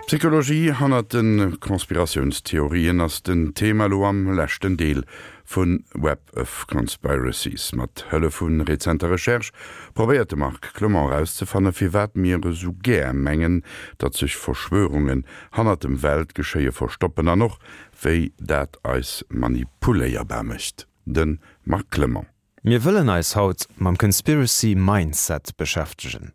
D'Psychologie hannert de Conspiratiounstheorien ass den Thema elo am leschten Deel vu Web of Conspiracies. Mat Hëllef vu rezenter Recherche probéiert de Marc Clement erauszefanne firwat mir esou gär mengen, datt sech Verschwörungen hannert dem Weltgeschéie verstoppen an och wéi dat eis manipuléierbar mécht. De Marc Clement. Mir wëllen eis haut mam Conspiracy Mindset beschäftegen.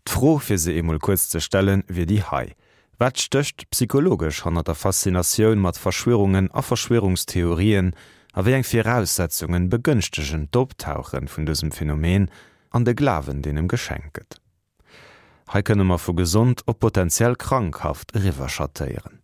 D'Fro, fir se eemol kuerz ze stellen, wier déi hei, Wat stécht psychologesch hannert der Faszinatioun mat Verschwörungen a Verschwörungstheorien a wéi eng Viraussetzungen begënschtegen d'Optauche vun dësem Phänomen an de Glawen, deen em geschenkt gëtt? Hei kënne mer vu gesond op potentiell krankhaft eriwwerschattéieren.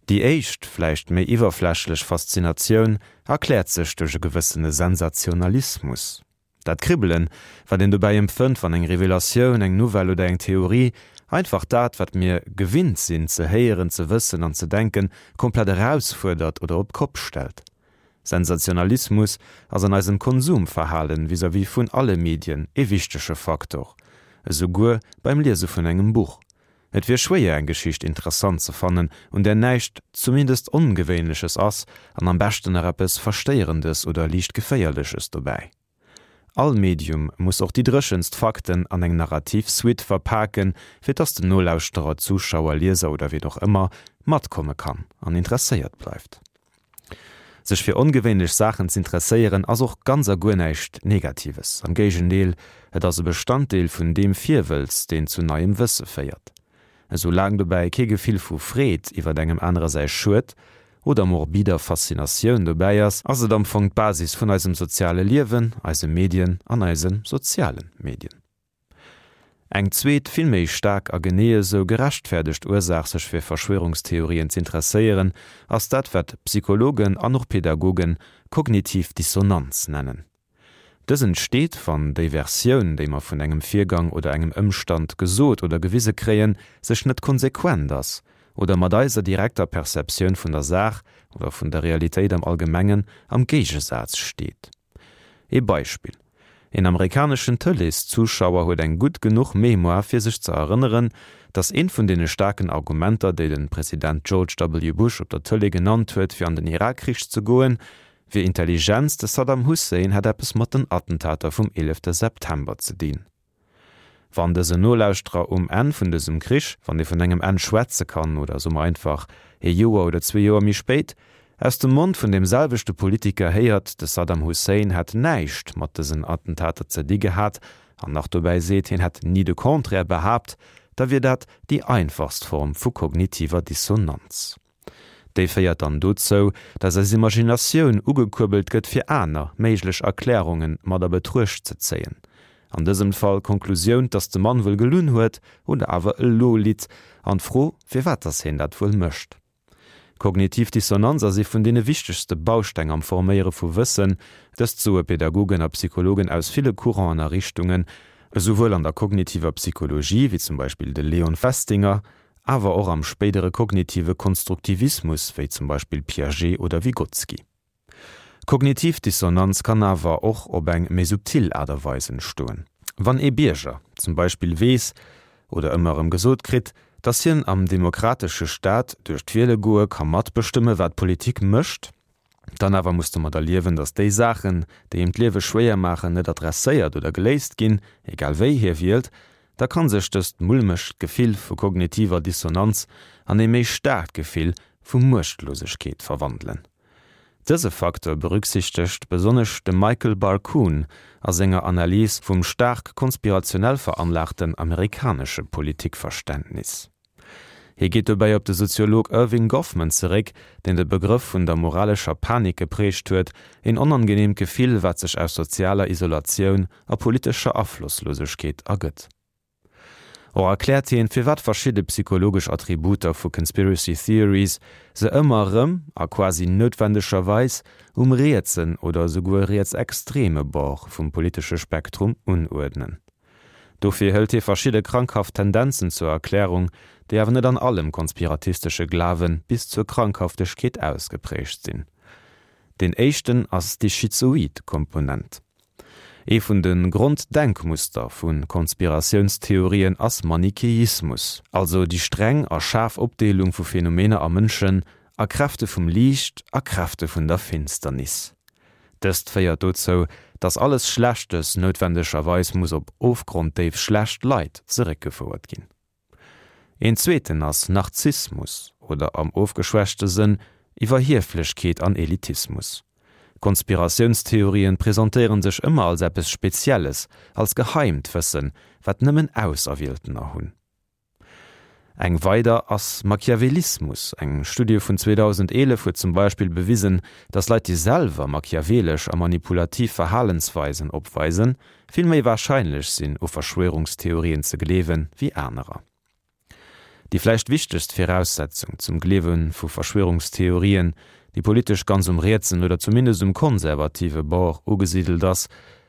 Déi éischt, vläicht méi iwwerflächlech Faszinatioun erkläert sech duerch e gewëssene Sensationalismus. Dat Kribbelen, wat een dobäi empfënnt, wann eng Revelatioun, eng Nouvelle oder eng Theorie einfach dat, wat mir gewinnt sinn ze héieren, ze wëssen an ze denken, komplett erausfuerdert oder op d'Kopp stellt. Sensationalismus ass an eisem Konsumverhalen vis-à-vis vun alle Medien ee wichtege Faktor, esouguer beim Liese vun engem Buch. Et wier schwéier eng Geschicht interessant ze fannen, un där näischt zumindest Ongewéinleches ass an am beschten nach eppes Verstéierendes oder liicht Geféierleches dobäi. All Medium muss och déi dréchenst Fakten an eng narrativ Suite verpaken, fir dass den Nolauschterer, Zuschauer, Lieser oder wien och ëmmer matkomme kann an interesséiert bleift. Sech fir ongewéinlech Saachen z'interesséieren ass och ganz a guer näischt Negatives, am Géigendeel, et ass e Bestanddeel vun deem Virwëlz, deen zu neiem Wësse féiert. Esou laang dobäi kee Gefill vu Freed iwwert engem anere säi Schued oder morbider Faszinatioun dobäi ass, ass et am Fong d'Basis vun eisem soziale Liewen, eise Medien an eise soziale Medien. Eng zweet, vill méi staark a genee esou gerechtfäerdegt Ursaach sech fir Verschwörungstheorien z'interesséieren, ass dat wat Psychologen an och Pädagogen kognitiv Dissonanz nennen. Dës entsteet, wann déi Versioun, déi mer vun engem Virgang oder engem Ëmstand gesot oder gewise kréien, sech net konsequent ass oder mat eiser direkter Perceptioun vun der Saach oder vun der Realitéit am Allgemengen am Géigesaz steet. Ee Beispill, Een amerikaneschen Tëleeszuschauer huet eng gutt genuch Mémoire fir sech ze erënneren, datt eent vun deene staarken Argumenter, déi de President George W. Bush op der Tëlee genannt huet fir an den Irakkrich ze goen, wier Intelligenz, de Saddam Hussein hätt eppes mat den Attentater vum 11 September ze dinn. Wann dësen Nolauschterer um Enn vun dësem Krich, wann ee vun engem Enn schwätze kann, oder soe mer einfach ee Joer oder zwee Joer méi spéit, aus dem Mond vun deem selwechte Politiker héiert, de Saddam Hussein hätt näischt mat dësen Attentater ze di gehat, an nach dobäi seet, hien hätt ni de Contraire behaapt, da wier dat déi einfachst Form vu kognitiver Dissonanz. Déi féiert dann dozou, dass eis Imaginatioun ugekuerbelt gëtt fir aner méiglech Erklärunge mat a Betruecht ze zéien. An dësem Fall d'Konklusioun, dass de Mann wuel gelunn huet oder awer elo litt, an d'Fro, firwat dass hien dat wuel mécht. Kognitiv Dissonanz ass ee vun deene wichtegste Bausteng am Forméiere vu Wëssen. Dëst soe Pädagogen a Psychologen aus ville Couranten a Richtungen, esouwuel an der kognitiver Psychologie, wéi zum Beispill de Leon Festinger, awer och am spéidere kognitive Konstruktivismus, wéi zum Beispill Piaget oder Vygotsky. Kognitiv Dissonanz kann awer och op eng méi subtil Aart a Weis entstoen. Wann ee Bierger zum Beispill weess oder ëmmer erëm gesot kritt, datt hien am demokratesche Staat duerch d'Wiele goe ka matbestëmme wat d'Politik mécht, Dann awer muss domadder liewen, datt déi Saachen, déi him d'Liewe schwéier maachen, net adresséiert oder geléist ginn, egal wéi hie wielt. Da kann sech dëst mulmegt Gefill vu kognitiver Dissonanz an ee méi staarkt Gefill vu Muechtlosegkeet verwandelen. Dëse Facteur berücksichtegt besonnesch de Michael Barkun a senger Analys vum staark konspirationell veranlaagten amerikanesche Politikverständnis. Hie geet dobäi op de Soziolog Erving Goffman zeréck, deen de Begrëff vun der moralescher Panik geprägt huet, een onangeneemt Gefill, wat sech aus sozialer Isolatioun a politescher Aflosslosegkeet ergëtt. Och erkläert hien, firwat verschidde psychologesch Attributer vu Conspiracy Theories se ëmmer erëm, a quasi noutwendegerweis, um rietsen oder esouguer rietsextreme Bord vum politesche Spektrum unuerdnen. Dofir hëlt hie verschidde krankhaft Tendenzen zur Erklärung, déi awer net an allem konspiratistesche Glawe bis zur Krankhaftegkeet ausgeprägt sinn. Deen éischten ass déi schizoid Komponent. Ee vun de Gronddenkmuster vu Konspiratiounstheorien ass Manicheismus, also déi streng a schaarf Opdeelung vu Phänomener a Mënschen a Kräfte vum Liicht a Kräfte vun der Finsternis. Dëst féiert dozou, datt alles Schlechtes noutwendegerweis muss op ofgronddéif schlecht Leit zeréckgefouert ginn. Een zweeten ass Narzissmus oder am ofgeschwächte Sënn Iwwerhieflechkeet an Elitismus. Konspiratiounstheorien presentéieren sech ëmmer als eppes Spezielles, als geheimt Wëssen, wat nëmmen Auserwieltener hunn. Eng weider ass Machiavellismus. Eng Studie vun 2011 huet zum Beispill bewisen, datt Leit, déi selwer machiavelesch a manipulativ Verhalensweisen opweisen, vill méi warscheinlech sinn, u Verschwörungstheorien ze gleewen, wéi anerer. Déi vläicht wichtegst Viraussetzung zum Gleewe vu Verschwörungstheorien, déi politesch ganz um rietsen oder zumindest um konservative Bord ugesidelt ass,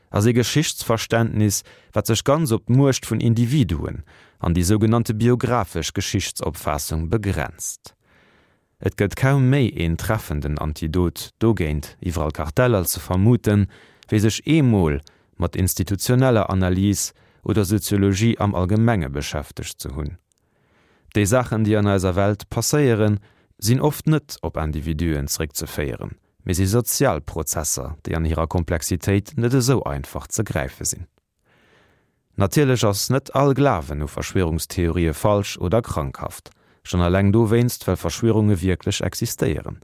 ass ee Geschichtsverständnis, wat sech ganz op d'Muecht vun Individuen an déi sougenannte biographesch Geschichtsopfaassung begrenzt. Et gëtt kaum méi een treffenden Antidot dogéint, iwwerall Karteller ze vermuten, wéi sech eemol mat institutioneller Analys oder Soziologie am Allgemenge beschäftegt ze hunn. Déi Saachen, déi an eiser Welt passéieren, sinn oft net op Individuen zréckzeféieren, mee si sozial Prozesser, déi an hirer Komplexitéit net esou einfach ze gräife sinn. Natierlech ass net all Glawen u Verschwierungstheorië falsch oder krankhaft, schonn eleng dowéinst, well Verschwierunge wierklech existéieren.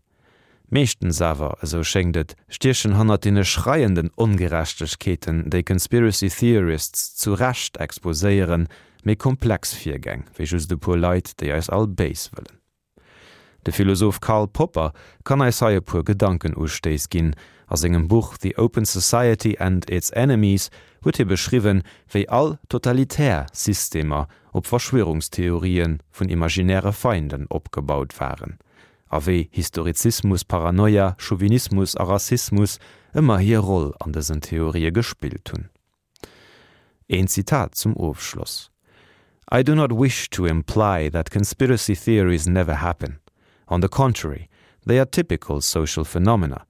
Meeschtens awer, esou schéngt et, stiechen hannert deene schreienden Ongerechtegkeeten, déi Conspiracy Theorists zu Recht exposéieren, méi komplex Virgäng, wéi just e puer Leit, déi eis all béis wëllen. De Philosoph Karl Popper kann eis hei e puer Gedankenustéiss ginn. A sengem Buch The Open Society and Its Enemies huet hie beschriwwen, wéi all totalitär Systemer op Verschwörungstheorië vun imaginäre Feinden opgebaut waren a wéi Historizismus, Paranoia, Chauvinismus a Rassismus ëmmer hir Roll an dësen Theorië gespillt hunn. Een Zitat zum Ofschloss: I do not wish to imply that conspiracy theories never happen. On the contrary, they are typical social phenomena.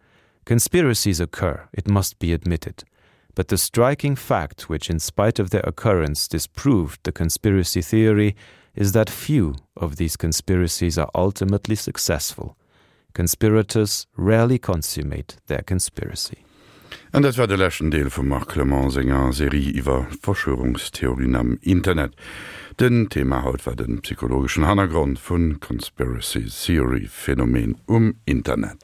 Conspiracies occur, it must be admitted. But the striking fact which in spite of their occurrence disproved the conspiracy theory is that few of these conspiracies are ultimately successful. Conspirators rarely consummate their conspiracy. An dat war de leschten Deel vum Marc Clement senger Serie iwwer Verschwörungstheorien am Internet. Den Thema haut war de psychologeschen Hannergrond vun Conspiracy Theory Phänomen um Internet.